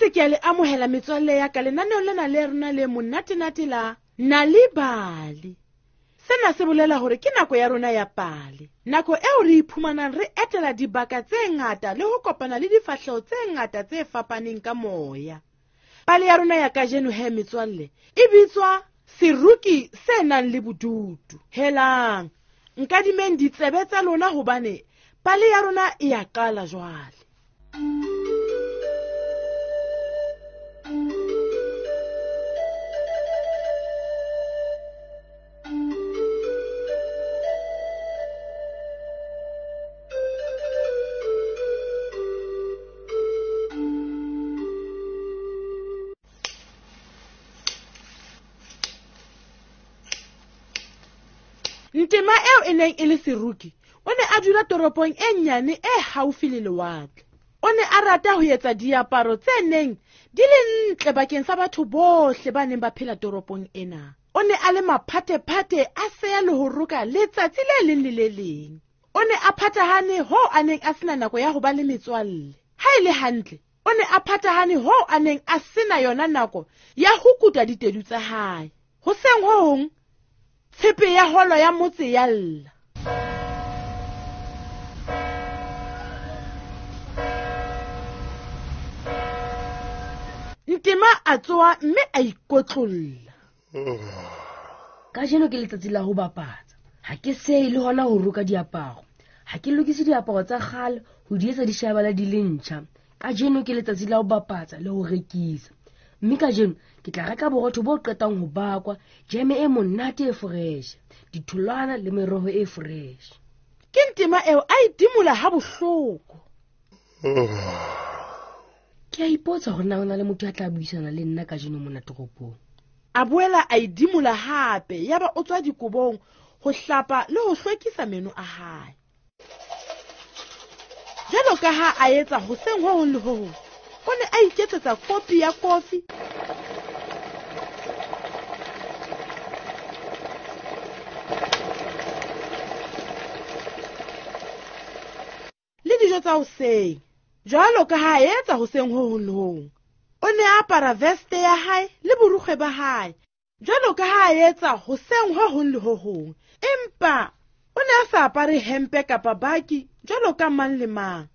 boetse ke a le amohela metswalle ya ka lenaneong lena le rona le monatenate la Nal'ibali. Sena se bolela hore ke nako ya rona ya pale, nako eo re iphumanang re etela dibaka tse ngata le ho kopana le difahleho tse ngata tse fapaneng ka moya. Pale ya rona ya kajeno he metswalle e bitswa Seruki se nang le bodutu. Helang, nkadimeng ditsebe tsa lona hobane pale ya rona e a qala jwale. Ntema eo e neng e le seruki o ne a dula toropong e nnyane e haufi le lewatle. O ne a rata ho etsa diaparo tse neng di le ntle bakeng sa batho bohle ba neng ba phela toropong ena. O ne a le maphatephate a seya le ho roka letsatsi le leng le le leng. O ne a phathahane hoo a neng a sena nako ya ho ba le metswalle. Ha e le hantle, o ne a phathahane hoo a neng a sena yona nako ya ho kuta ditedu tsa hae. Hoseng ho hong, tshepe ya holo ya motse ya lla. Ntema a tsoha mme a ikotlolla. Kajeno ke letsatsi la ho bapatsa. Ha ke seye le hona ho roka diaparo. Ha ke lokise diaparo tsa kgale ho di etsa di shebala di le ntjha. Kajeno ke letsatsi la ho bapatsa le ho rekisa. Mme kajeno ke tla reka borotho bo qetang ho bakwa, jeme e monate e fresh, ditholwana le meroho e fresh. Ke Ntema eo a idimola ha bohloko. Ke a ipotsa hore na ho na le motho ya tla buisana le nna kajeno mona toropong. A boela a idimola hape, yaba o tswa dikobong ho hlapa le ho hlwekisa meno a hae. Jwalo ka ha a etsa hoseng ho hong le ho hong, o ne a iketsetsa kopi ya kofi le dijo tsa hoseng. Jwalo ka ha a etsa hoseng ho hong le ho hong, o ne a apara veste ya hae le borukgwe ba hae jwalo ka ha a etsa hoseng ho hong le ho hong, empa o ne a sa apare hempe kapa baki jwalo ka mang le mang.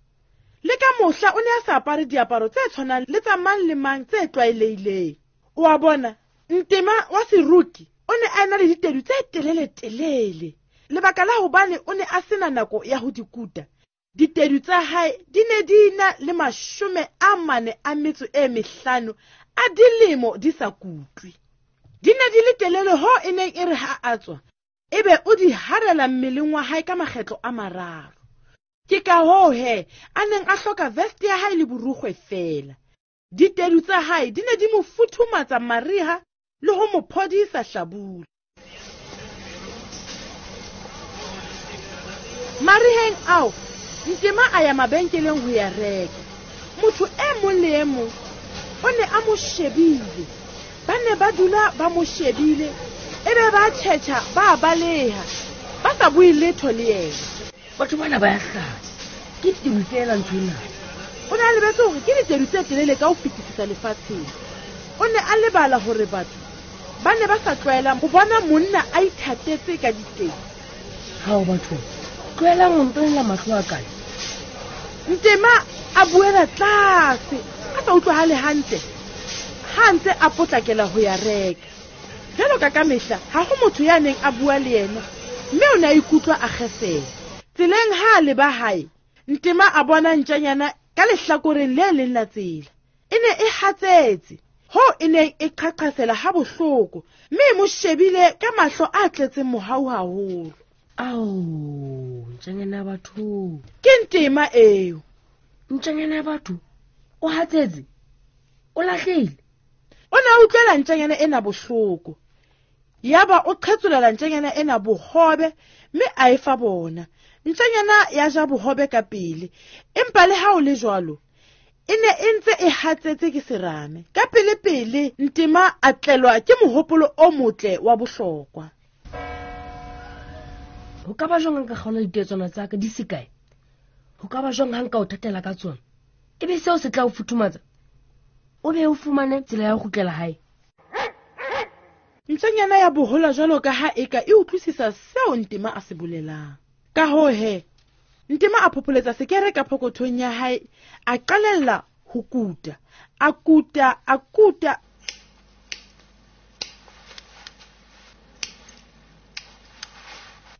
Le ka mohla o ne a sa apare diaparo tse tshwanang le tsa mang le mang tse tlwaelehileng. O a bona, Ntema wa seruki o ne a ena le ditedu tse telele-telele. Lebaka la hobane o ne a sena nako ya ho di kuta, ditedu tsa hae di ne di na le 45 a dilemo di sa kutlwe. Di ne di le telele hoo e neng e re ha a tswa, ebe o di harela mmeleng wa hae ka makgetlo a mararo. Ke ka hoo he a neng a hloka veste ya hae le borukgwe feela. Ditedu tsa hae di ne di mo futhumatsa mariha le ho mo phodisa hlabula. Mariheng ao, Ntema a ya mabenkeleng ho ya reka. Motho e mong le e mong o ne a mo shebile. Ba ne ba dula ba mo shebile, ebe ba tjhetjha ba baleha, ba sa bue letho le yena. Batho bana ba ya hlanya. Ke ditedu feela ntho ena. O ne a lebetse hore ke ditedu tse telele ka ho fetisisa lefatsheng. O ne a lebala hore batho ba ne ba sa tlwaelang ho bona monna a ithatetse ka ditedu. Hao batho, tlohelang ho ntonela mahlo a kae. Ntema a buela tlase, a sa utlwahale hantle, ha a ntse a potlakela ho ya reka. Jwalo ka kamehla, ha ho motho ya neng a bua le yena, mme o ne a ikutlwa a kgesela. Tseleng ha a leba hae, Ntema a bona ntjanyana ka lehlakoreng le leng la tsela. E ne e hatsetse, hoo e neng e qhaqhasela ha bohloko, mme e mo shebile ka mahlo a tletseng mohau haholo. Ao, ntjanyana ya batho. Ke Ntema eo. Ntjanyana ya batho, o hatsetse, o lahlehile. O ne a utlwela ntjanyana ena bohloko. Yaba o qhetsolela ntjanyana ena bohobe mme a e fa bona. Ntjanyana ya ja bohobe ka pele, empa le ha o le jwalo, e ne e ntse e hatsetse ke serame. Ka pele-pele Ntema a tlelwa ke mohopolo o motle wa bohlokwa. Ho ka ba jwang ha nka kgaola ditetswana tsa ka di se kae? Ho ka ba jwang ha nka o thatela ka tsona? Ebe seo se tla o futhumatsa? O be o fumane tsela ya ho kgutlela hae. Ntjanyana ya bohola jwalo ka ha eka e utlwisisa seo Ntema a se bolelang. Ka hoo he, Ntema a phopholetsa sekere ka phokothong ya hae, a qalella ho kuta. A kuta, a kuta.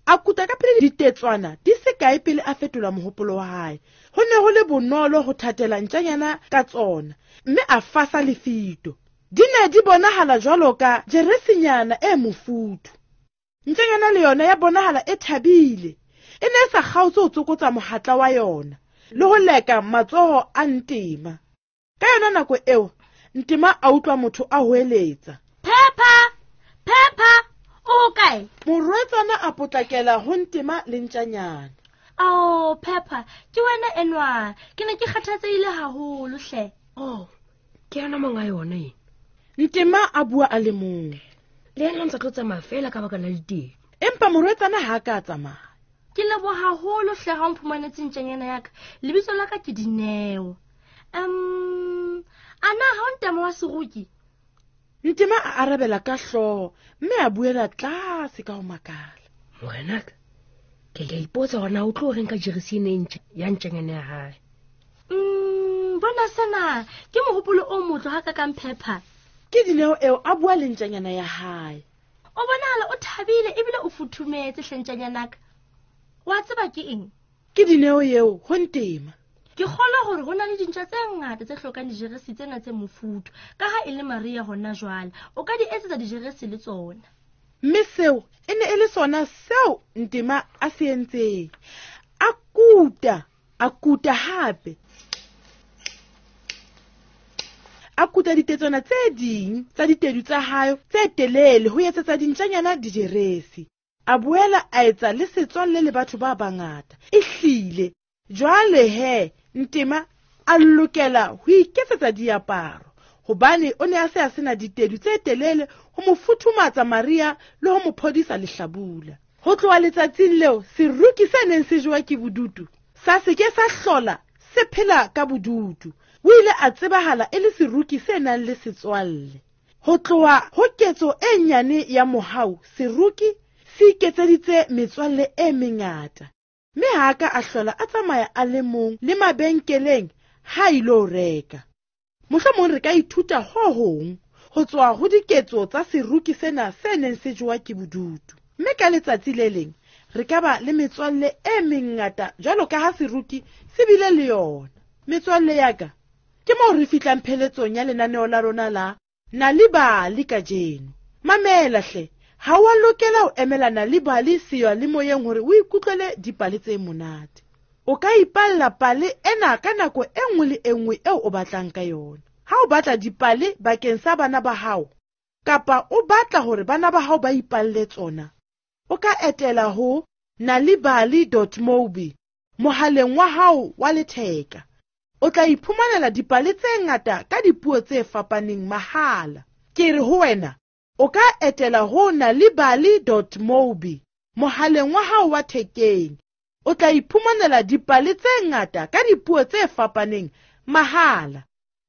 A kuta ka pele ditetswana di se kae pele a fetola mohopolo wa hae. Ho ne ho le bonolo ho thatela ntjanyana ka tsona, mme a fasa lefito. Di ne di bonahala jwalo ka jeresinyana e mofuthu. Ntjanyana le yona ya bonahala e thabile. E ne e sa kgaotse ho tsokotsa mohatla wa yona le ho leka matsoho a Ntema. Ka yona nako eo, Ntema a utlwa motho a hoeletsa. Pepper! Pepper! O hokae? Morwetsana a potlakela ho Ntema le ntjanyana. Ao, Pepper, ke wena enwa. Ke ne ke kgathatsehile haholo hle. Oh, ke yena monga yona ena. Ntema a bua a le mong. Le yena o ntse a tlo tsamaya fela ka baka la diteng. Empa morwetsana ha a ka a tsamaya. Ke leboha haholo hle ha o mphumanetse ntjanyana ya ka. Lebitso la ka ke Dineo. A na ha o Ntema wa seruki? Ntema a arabela ka hlooho mme a buela tlase ka ho makala. Morenaka, ke a ipotsa hore na o tlo reng ka jeresi ena e ntjha ya ntjanyana ya hae. Bona sena ke mohopolo o motle ha ka kang Pepper. Ke Dineo eo a bua le ntjanyana ya hae. O bonahala o thabile ebile o futhumetse hle ntjanyanaka. Wa tseba ke eng? Ke Dineo eo ho Ntema. Ke kgolwa hore ho na le dintja tse ngata tse hlokang dijeresi tsena tse mofuthu. Ka ha e le mariha hona jwale, o ka di etsetsa dijeresi le tsona. Mme seo e ne e le sona seo Ntema a se entseng. A kuta, a kuta hape. A kuta ditetswana tse ding tsa ditedu tsa hae tse telele ho etsetsa dintjanyana dijeresi. A boela a etsa le setswalle le batho ba bangata. Ehlile, jwale he, Ntema a lokela ho iketsetsa diaparo hobane o ne a se a sena ditedu tse telele ho mo futhumatsa mariha le ho mo phodisa lehlabula. Ho tloha letsatsing leo, seruki se neng se jewa ke bodutu sa se ke sa hlola se phela ka bodutu. O ile a tsebahala e le seruki se nang le setswalle. Ho tloha ho ketso e nyane ya mohau, seruki se iketseditse metswalle e mengata. Mme ha a ka a hlola a tsamaya a le mong le mabenkeleng ha a ilo reka. Mohlomong re ka ithuta ho hong ho tswa ho diketso tsa seruki sena se neng se jewa ke bodutu. Mme ka letsatsi le leng re ka ba le metswalle e mengata jwalo ka ha seruki se bile le yona. Metswalle ya ka, ke moo re fihlang pheletsong ya lenaneo la rona la Nal'ibali kajeno. Mamela hle, ha o a lokela ho emela Nal'ibali seyalemoyeng hore o ikutlwele dipale tse monate. O ka ipalla pale ena ka nako e nngwe le e nngwe eo o batlang ka yona. Ha o batla dipale bakeng sa bana ba hao, kapa o batla hore bana ba hao ba ipalle tsona, o ka etela ho nalibali dot mobi mohaleng wa hao wa letheka. O tla iphumanela dipale tse ngata ka dipuo tse fapaneng mahala. Ke re ho wena, o ka etela ho nalibali dot mobi mohaleng wa hao wa thekeng. O tla iphumanela dipale tse ngata ka dipuo tse fapaneng mahala.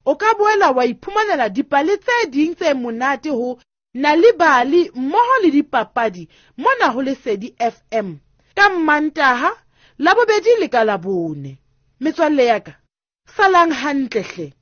O ka boela wa iphumanela dipale tse ding tse monate ho Nal'ibali mmoho le dipapadi mona ho Lesedi FM ka Mmantaha, Labobedi le ka Labone. Metswalle ya ka, salang hantle hle.